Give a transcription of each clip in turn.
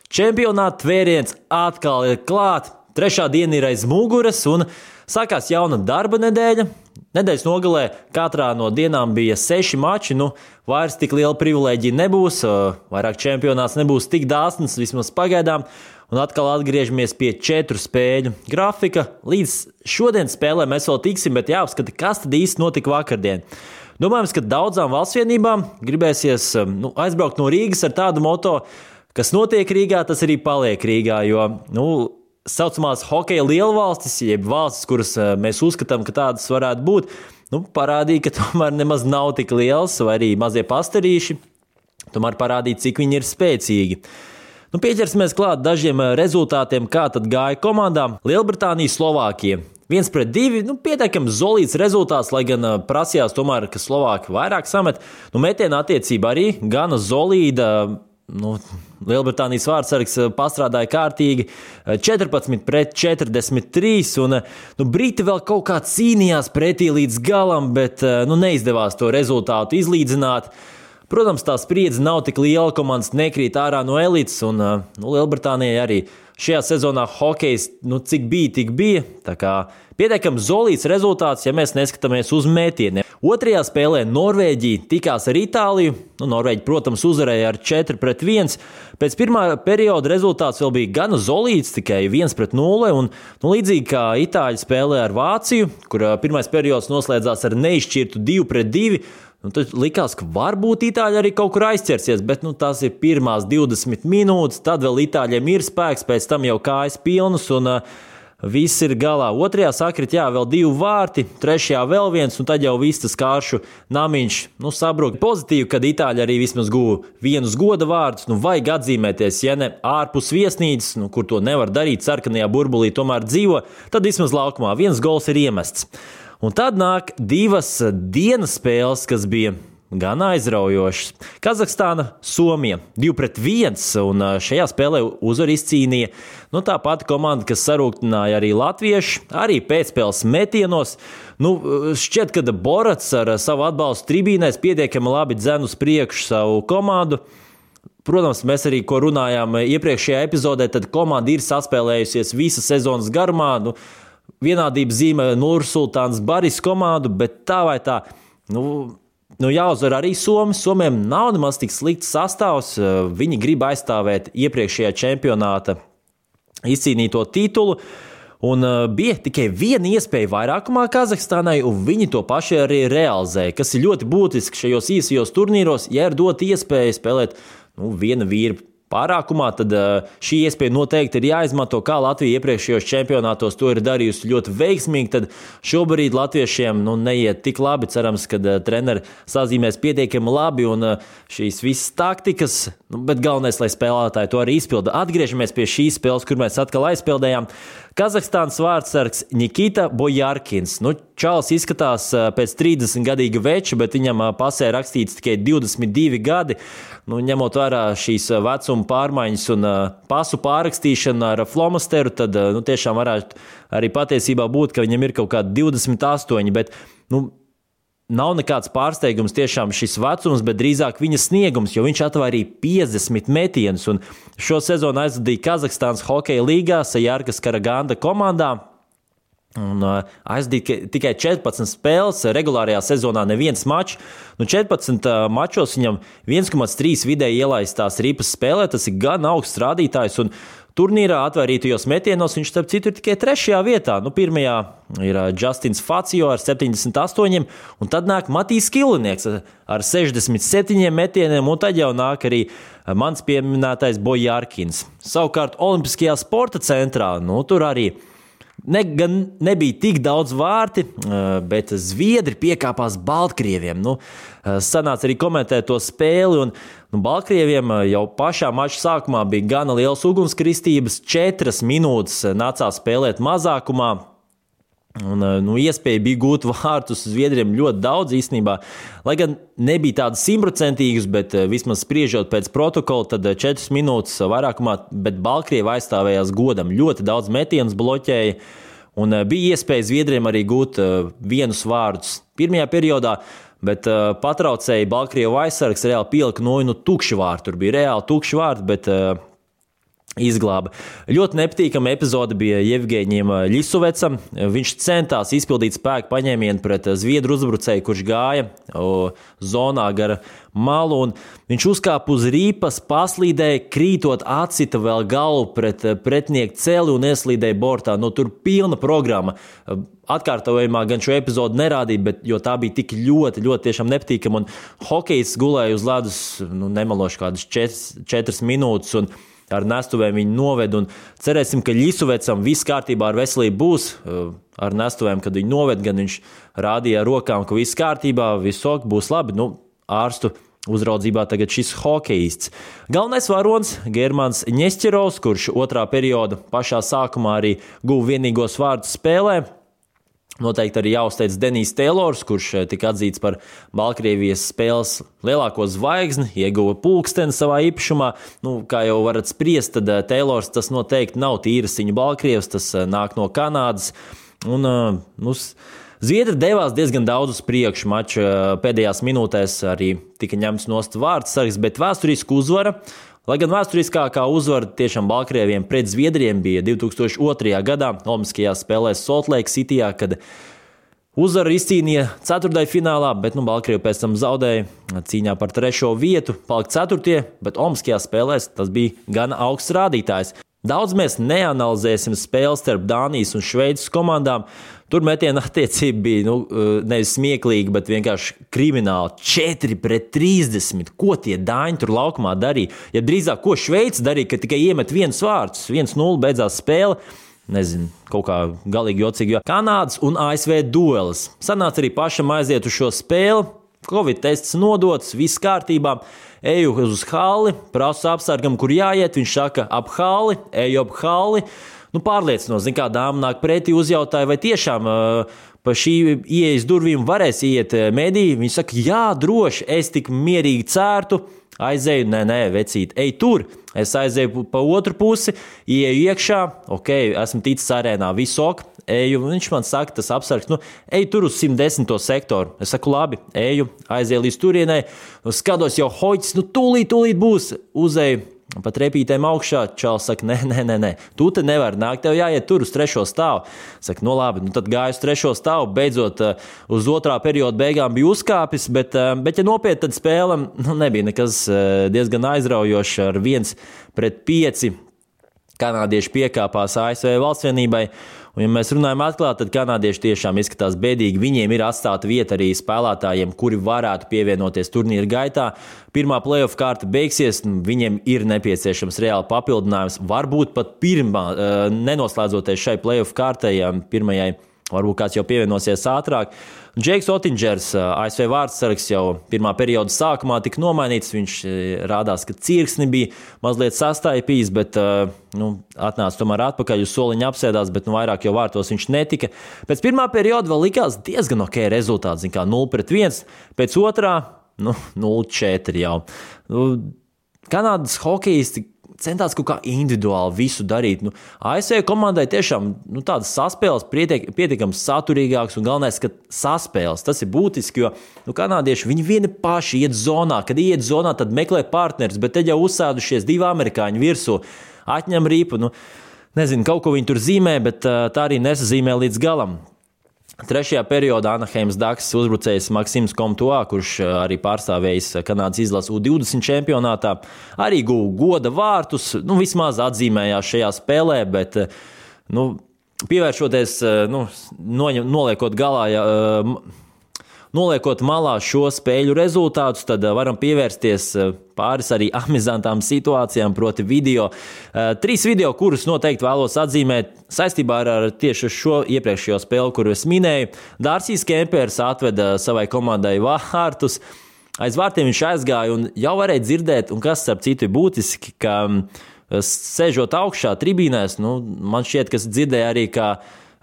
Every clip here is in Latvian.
Čempionāta tvēriens atkal ir klāt, trešā diena ir aiz muguras un sākās jauna darba nedēļa. Nedēļas nogalē katrā no dienām bija 6 mači, vairs tik liela privilēģija nebūs, vairāk čempionāts nebūs tik dāsns, vismaz pagaidām, un atkal atgriežamies pie 4 spēļu grafika. Līdz šodienas spēlē mēs vēl tiksim, bet jāapskata, kas tad īsti notika vakardien. Domājams, ka daudzām valstsvienībām gribēsies aizbraukt no Rīgas ar tādu moto, kas notiek Rīgā, tas arī paliek Rīgā, jo saucamās hokeja lielvalstis, jeb valstis, kuras mēs uzskatām, ka tādas varētu būt, parādīja, ka tomēr nemaz nav tik liels, vai arī mazie pastarīši, tomēr parādīja, cik viņi ir spēcīgi. Pieķersimies klāt dažiem rezultātiem, kā tad gāja komandām. Lielbritānija, Slovākija 1-2, pietiekami solīds rezultāts, lai gan prasījās tomēr, ka Slovāki vairāk samet. Metiena attiecība arī gana solīda. Lielbritānijas vārdsargs pastrādāja kārtīgi 14-43, un Briti vēl kaut kā cīnījās pretī līdz galam, bet neizdevās to rezultātu izlīdzināt. Protams, tā spriedze nav tik liela, komandas nekrīt ārā no elites, un Lielbritānijai arī šajā sezonā hokejs, cik bija, tik bija. Tā kā pietiekami solīds rezultāts, ja mēs neskatāmies uz metieniem. Otrajā spēlē Norvēģija tikās ar Itāliju. Norvēģi, protams, uzvarēja ar 4-1. Pēc pirmā perioda rezultāts vēl bija gana solīds, tikai 1-0. Un, līdzīgi kā Itāļi spēlē ar Vāciju, kur pirmais periods noslēdzās ar neizšķirtu 2-2. Tad likās, ka varbūt Itāļi arī kaut kur aizķersies, bet tās ir pirmās 20 minūtes, tad vēl Itāļiem ir spēks, pēc tam jau kājas pilnas un viss ir galā. Otrajā sakrit, vēl 2 vārti, trešajā vēl 1, un tad jau viss tas kāršu namiņš sabruka. Pozitīvi, kad Itāļi arī vismaz guva 1 goda vārdus, vajag atzīmēties, ja ne ārpus viesnīcas, kur to nevar darīt, sarkanajā burbulī tomēr dzīvo, tad vismaz laukumā 1 gols ir iemests. Un tad nāk 2 dienas spēles, kas bija gan aizraujošas. Kazahstāna, Somija 2-1, un šajā spēlē uzvaru izcīnīja tā pati komanda, kas sarūktināja arī latvieši, arī pēcspēles metienos. Šķiet, ka Borats ar savu atbalstu tribīnēs pietiekami labi dzen uz priekšu savu komandu. Protams, mēs arī, ko runājām iepriekšējā epizodē, tad komanda ir saspēlējusies visa sezonas garumā. Vienādības zīme Nursultāns Baris komandu, bet tā vai tā, jāuzvar arī Somi. Somiem nav nemaz tik slikts sastāvs, viņi grib aizstāvēt iepriekšējā čempionāta izcīnīto titulu, un bija tikai 1 iespēja vairākumā Kazahstānai, un viņi to paši arī realizēja, kas ir ļoti būtiski šajos īsajos turnīros, ja ir dot iespēju spēlēt viena vīra pārākumā, tad šī iespēja noteikti ir jāizmanto, kā Latvija iepriekšējos čempionātos to ir darījusi ļoti veiksmīgi, tad šobrīd latviešiem neiet tik labi, cerams, kad treneri sazīmēs pietiekami labi un šīs visas taktikas, bet galvenais, lai spēlētāji to arī izpilda. Atgriežamies pie šīs spēles, kur mēs atkal aizpildējām. Kazahstānas vārdsargs Nikita Bojarkins. Čalis izskatās pēc 30-gadīga veča, bet viņam pasē rakstīts tikai 22 gadi. Ņemot vērā šīs vecuma pārmaiņas un pasu pārrakstīšanu ar flomasteru, tad tiešām varētu arī patiesībā būt, ka viņam ir kaut kādi 28, bet nav nekāds pārsteigums tiešām šis vecums, bet drīzāk viņa sniegums, jo viņš atvairīja 50 metienus un šo sezonu aizvadīja Kazahstānas hokeja līgā Sajārkas Karaganda komandā. Un aizdīja tikai 14 spēles, regulārajā sezonā neviens mačs. 14 mačos viņam 1,3 vidēji ielaistās ripas spēlē, tas ir gan augsts rādītājs, un turnīrā atvairītajos metienos viņš starp citu ir tikai 3. vietā. Pirmajā ir Justins Facio ar 78, un tad nāk Matīs Kilinieks ar 67 metieniem, un tad jau nāk arī mans pieminētais Bojarkins. Savukārt Olimpiskajā sporta centrā, tur arī gan nebija tik daudz vārti, bet zviedri piekāpās Baltkrieviem. Sanāca arī komentēt to spēli, un Baltkrieviem jau pašā mača sākumā bija gana liels ugunskristības, 4 minūtes nācās spēlēt mazākumā. Un, iespēja bija gūt vārtus Zviedriem ļoti daudz īstenībā, lai gan nebija tādas 100%, bet vismaz spriežot pēc protokola, tad 4 minūtes vairākumā, bet Baltkrievi aizstāvējās godam, ļoti daudz metienus bloķēja, un bija iespēja Zviedriem arī gūt 1 vārdus pirmajā periodā, bet patraucēja Baltkrievu aizsargs, reāli pielika tukši vārti, tur bija reāli tukši vārti, bet izglāba. Ļoti nepatīkama epizode bija Jevgeņiem Ļisovecam. Viņš centās izpildīt spēku paņēmienu pret zviedru uzbrucēju, kurš gāja zonā gara malu, un viņš uzkāpa uz rīpas, paslīdēja, krītot atsita vēl galvu pret pretinieku celi un ieslīdēja bortā. Tur pilna programma. Atkārtojumā gan šo epizodu nerādīja, jo tā bija tik ļoti, ļoti tiešām nepatīkama, un hokejs gulēja uz ledus, nemaloši kādas 4 minūtes, un ar nestuvēm viņu noved, un cerēsim, ka Ļisovecam viss kārtībā ar veselību būs. Ar nestuvēm, kad viņu noved, gan viņš rādīja ar rokām, ka viss kārtībā, viss ok, būs labi. Ārstu uzraudzībā tagad šis hokejists. Galvenais varonis Germans Ņesķerovs, kurš otrā perioda pašā sākumā arī guva vienīgos vārdus spēlē. Noteikti arī jāuzteic Denijs Teilors, kurš tika atzīts par Baltkrievijas spēles lielāko zvaigzni, ieguva pulksteni savā īpašumā. Kā jau varat spriest, tad Teilors tas noteikti nav tīras viņa Baltkrievs, tas nāk no Kanādas. Zviedri devās diezgan daudz uz priekšu mača pēdējās minūtēs, arī tika ņemts nost vārdsargs, bet vēsturisku uzvara. Lai gan vēsturiskākā uzvara tiešām Baltkrieviem pret Zviedriem bija 2002. gadā Olimpiskajās spēlēs Salt Lake Cityjā, kad uzvaru izcīnīja ceturtdaļfinālā, bet Baltkrievi pēc tam zaudēja cīņā par 3. vietu, palika 4., bet Olimpiskajās spēlēs tas bija gan augsts rādītājs. Daudz mēs neanalizēsim spēles starp Dānijas un Šveices komandām. Tur metiena attiecība bija nevis smieklīga, bet vienkārši krimināla. 4-30. Ko tie dāņi tur laukumā darīja? Ja drīzāk, ko Šveice darīja, ka tikai iemet viens vārds, 1-0 beidzās spēle. Nezinu, kaut kā galīgi jocīgi, jo Kanādas un ASV duelis. Sanāca arī pašam aiziet uz šo spēli. Covid tests nodots, viss kārtībā. Eju uz halli, prasu apsargam, kur jāiet. Viņš saka, ap halli, eju ap halli. Pārliecinos, kā dāma nāk pretī, uzjautāja, vai tiešām pa šī ieejas durvīm varēs iet mediji. Viņš saka, jā, droši, es tik mierīgi cērtu. Aizēju, nē, vecīt, ej tur. Es aizēju pa otru pusi, ieeju iekšā, ok, esmu ticis arēnā, visu ok. Eju, viņš man saka, tas apsargs, ej tur uz 110. sektoru. Es saku, labi, eju, aizēju līdz turienei, skatos jau hoģis, tūlīt būs, uzēju pa trepītēm augšā. Čals saka, nē, tu te nevar nākt, tev jāiet tur uz 3. stāvu. Saka, labi, tad gāju uz 3. stāvu, beidzot uz otrā perioda beigām bija uzkāpis, bet ja nopietni, tad spēle nebija nekas diezgan aizraujošs ar 1-5. Kanādieši piekāpās ASV valstsvienībai. Un, ja mēs runājam atklāti, tad kanādieši tiešām izskatās bēdīgi. Viņiem ir atstāta vieta arī spēlētājiem, kuri varētu pievienoties turnīra gaitā. Pirmā playoff kārta beigsies, viņiem ir nepieciešams reāli papildinājums. Varbūt pat pirmā, nenoslēdzoties šai playoff kārtai, pirmajai, varbūt kāds jau pievienosies ātrāk. Džeiks Otingers, ASV vārdsargs, jau pirmā perioda sākumā tika nomainīts. Viņš rādās, ka cirksni bija mazliet sastaipījis, bet atnāca tomēr atpakaļ uz soliņa apsēdās, bet vairāk jau vārtos viņš netika. Pēc pirmā perioda vēl likās diezgan ok rezultāts, 0-1, pēc otrā 0-4 jau. Kanādas hokejisti centās kaut kā individuāli visu darīt. ASV komandai tiešām tādas saspēles pietiekams saturīgāks un galvenais, ka saspēles. Tas ir būtiski, jo kanādieši viņi vieni paši iet zonā. Kad iet zonā, tad meklē partneris, bet te jau uzsēdušies 2 amerikāņi virsū. Atņem ripu, nezinu, kaut ko viņi tur zīmē, bet tā arī nesazīmē līdz galam. 3. periodā Anaheimas Ducks uzbrucējs Maksims Komtoā, kurš arī pārstāvējis Kanādas izlases U20 čempionātā, arī guva goda vārtus, vismaz atzīmējās šajā spēlē, bet pievēršoties, noliekot malā šo spēļu rezultātus, tad varam pievērsties pāris arī amizantām situācijām, proti video. 3 video, kurus noteikti vēlos atzīmēt saistībā ar tieši šo iepriekšējo spēli, kuru es minēju. Dārsijs Kempers atveda savai komandai vārtus. Aiz vārtiem viņš aizgāja un jau varēja dzirdēt, un kas starp citu ir būtiski, ka sēžot augšā tribīnēs, man šķiet, ka dzirdēja arī, kā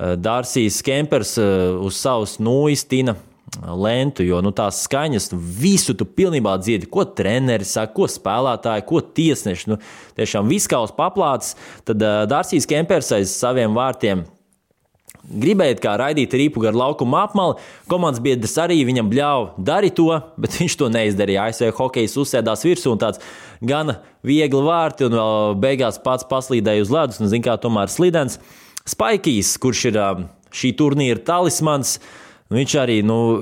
Dārsijs Kempers uz savus iztina lentu, jo tās skaņas, visu tu pilnībā dzirdi, ko treneri saka, ko spēlētāji, ko tiesneši, tiešām viskaus paplāts. Tad Dārsijs Kempers aiz saviem vārtiem gribēja kā raidīt ripu gar laukuma apmali. Komandas biedrs arī viņam bļauj, dari to, bet viņš to neizdarīja. ASV hokejs uzsēdās virsū un tāds gana viegli vārti un vēl beigās pats paslīdēja uz ledus un zin kā tomēr slidens. Spaikijs, kurš ir šī turnīra talismans, viņš arī,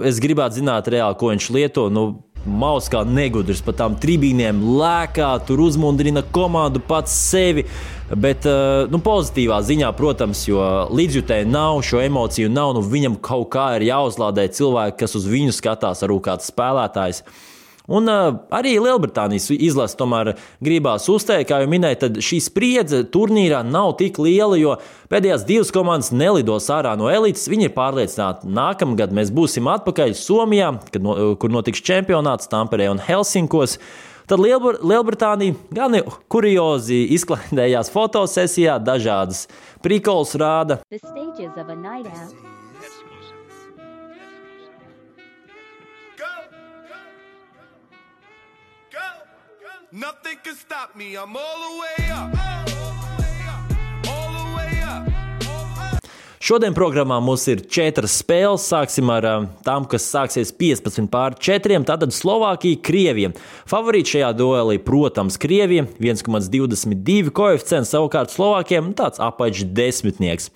es gribētu zināt reāli, ko viņš lieto, maus kā negudrs pa tām tribīnēm, lēkā, tur uzmundrina komandu pats sevi, bet pozitīvā ziņā, protams, jo līdzjutēji nav, šo emociju nav, viņam kaut kā ir jāuzlādē cilvēki, kas uz viņu skatās, arī kāds spēlētājs. Un arī Lielbritānijas izlase tomēr gribās uzteikt, kā jau minēju, tad šī spriedze turnīrā nav tik liela, jo pēdējās 2 komandas nelidos ārā no elites. Viņi ir pārliecināti, nākamgad mēs būsim atpakaļ Somijā, kur notiks čempionāts Tamperē un Helsinkos. Tad Lielbritānija gan kuriozi izklaidējās fotosesijā, dažādas prikols rāda. Nothing can stop me. I'm all the way up. All the way up. Šodien programmā mums ir 4 spēles. Sāksim ar tām, kas sāksies 15-4. Tātad Slovākija, Krievija. Favorīti šajā duelī, protams, Krievija. 1,22 koeficients, savukārt Slovākiem tāds apaļš desmitnieks.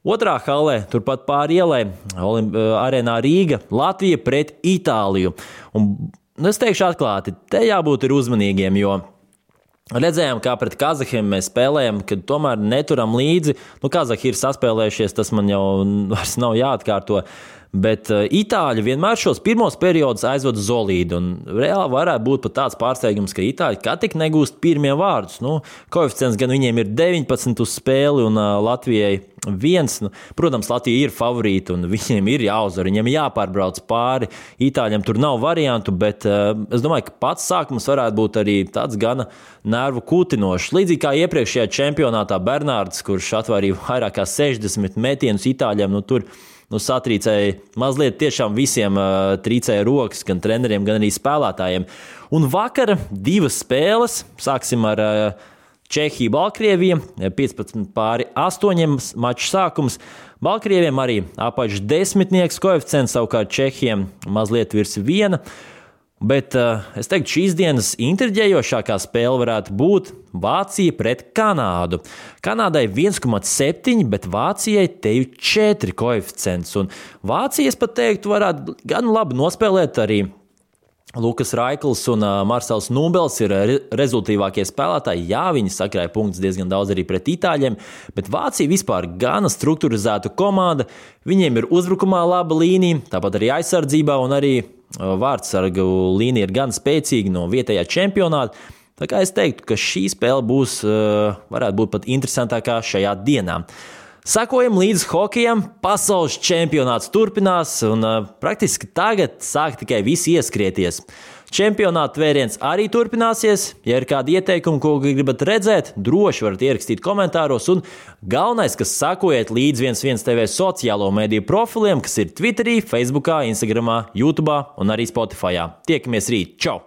Otrā halē, turpat pāri ielai, arēnā Rīga, Latvija pret Itāliju. Un es teikšu atklāti, te jābūt ir uzmanīgiem, jo redzējām, kā pret Kazahiem mēs spēlējam, kad tomēr neturam līdzi. Kazahi ir saspēlējušies, tas man jau vairs nav jāatkārto. Bet Itāļi vienmēr šos pirmos periodus aizvada solīdi. Un reāli varētu būt pat tāds pārsteigums, ka Itāļi kā tik negūst pirmie vārdus. Koeficients gan viņiem ir 19 uz spēli un Latvijai 1. Protams, Latvija ir favorīta un viņiem ir jāuzvar, viņiem jāpārbrauc pāri. Itāļiem tur nav variantu, bet es domāju, ka pats sākums varētu būt arī tāds gana nervu kūtinošs. Līdzīgi kā iepriekšējā čempionātā Bernārds, kurš atvērīja vairāk kā 60 metienus Itāļiem, tur satrīcēja mazliet tiešām visiem trīcēja rokas, gan treneriem, gan arī spēlētājiem. Un vakar 2 spēles, sāksim ar Čehiju, Baltkrieviju, 15-8 maču sākums. Baltkrieviem arī apaļš desmitnieks koeficients, savukārt Čehiem mazliet virs 1. Bet es teiktu, šīs dienas intriģējošākā spēle varētu būt Vācija pret Kanādu. Kanādai 1,7, bet Vācijai te ir 4 koeficients. Un Vācija, es pat teiktu, varētu gan labi nospēlēt arī Lukas Raikls un Marsels Nūbels ir rezultīvākie spēlētāji. Jā, viņi sakrāja punktus diezgan daudz arī pret Itāļiem, bet Vācija vispār gana strukturizēta komanda. Viņiem ir uzbrukumā laba līnija, tāpat arī aizsardzībā un arī vārdsargu līnija ir gan spēcīga no vietējā čempionāta. Tā kā es teiktu, ka šī spēle varētu būt pat interesantākā šajā dienā. Sakojam līdz hokejam, pasaules čempionāts turpinās un praktiski tagad sāk tikai visi ieskrieties. Čempionāta vēriens arī turpināsies. Ja ir kādi ieteikumi, ko gribat redzēt, droši varat ierakstīt komentāros. Un galvenais, kas sakojiet līdz 11 TV sociālo mediju profiliem, kas ir Twitterī, Facebookā, Instagramā, YouTubā un arī Spotifyā. Tiekamies rīt. Čau!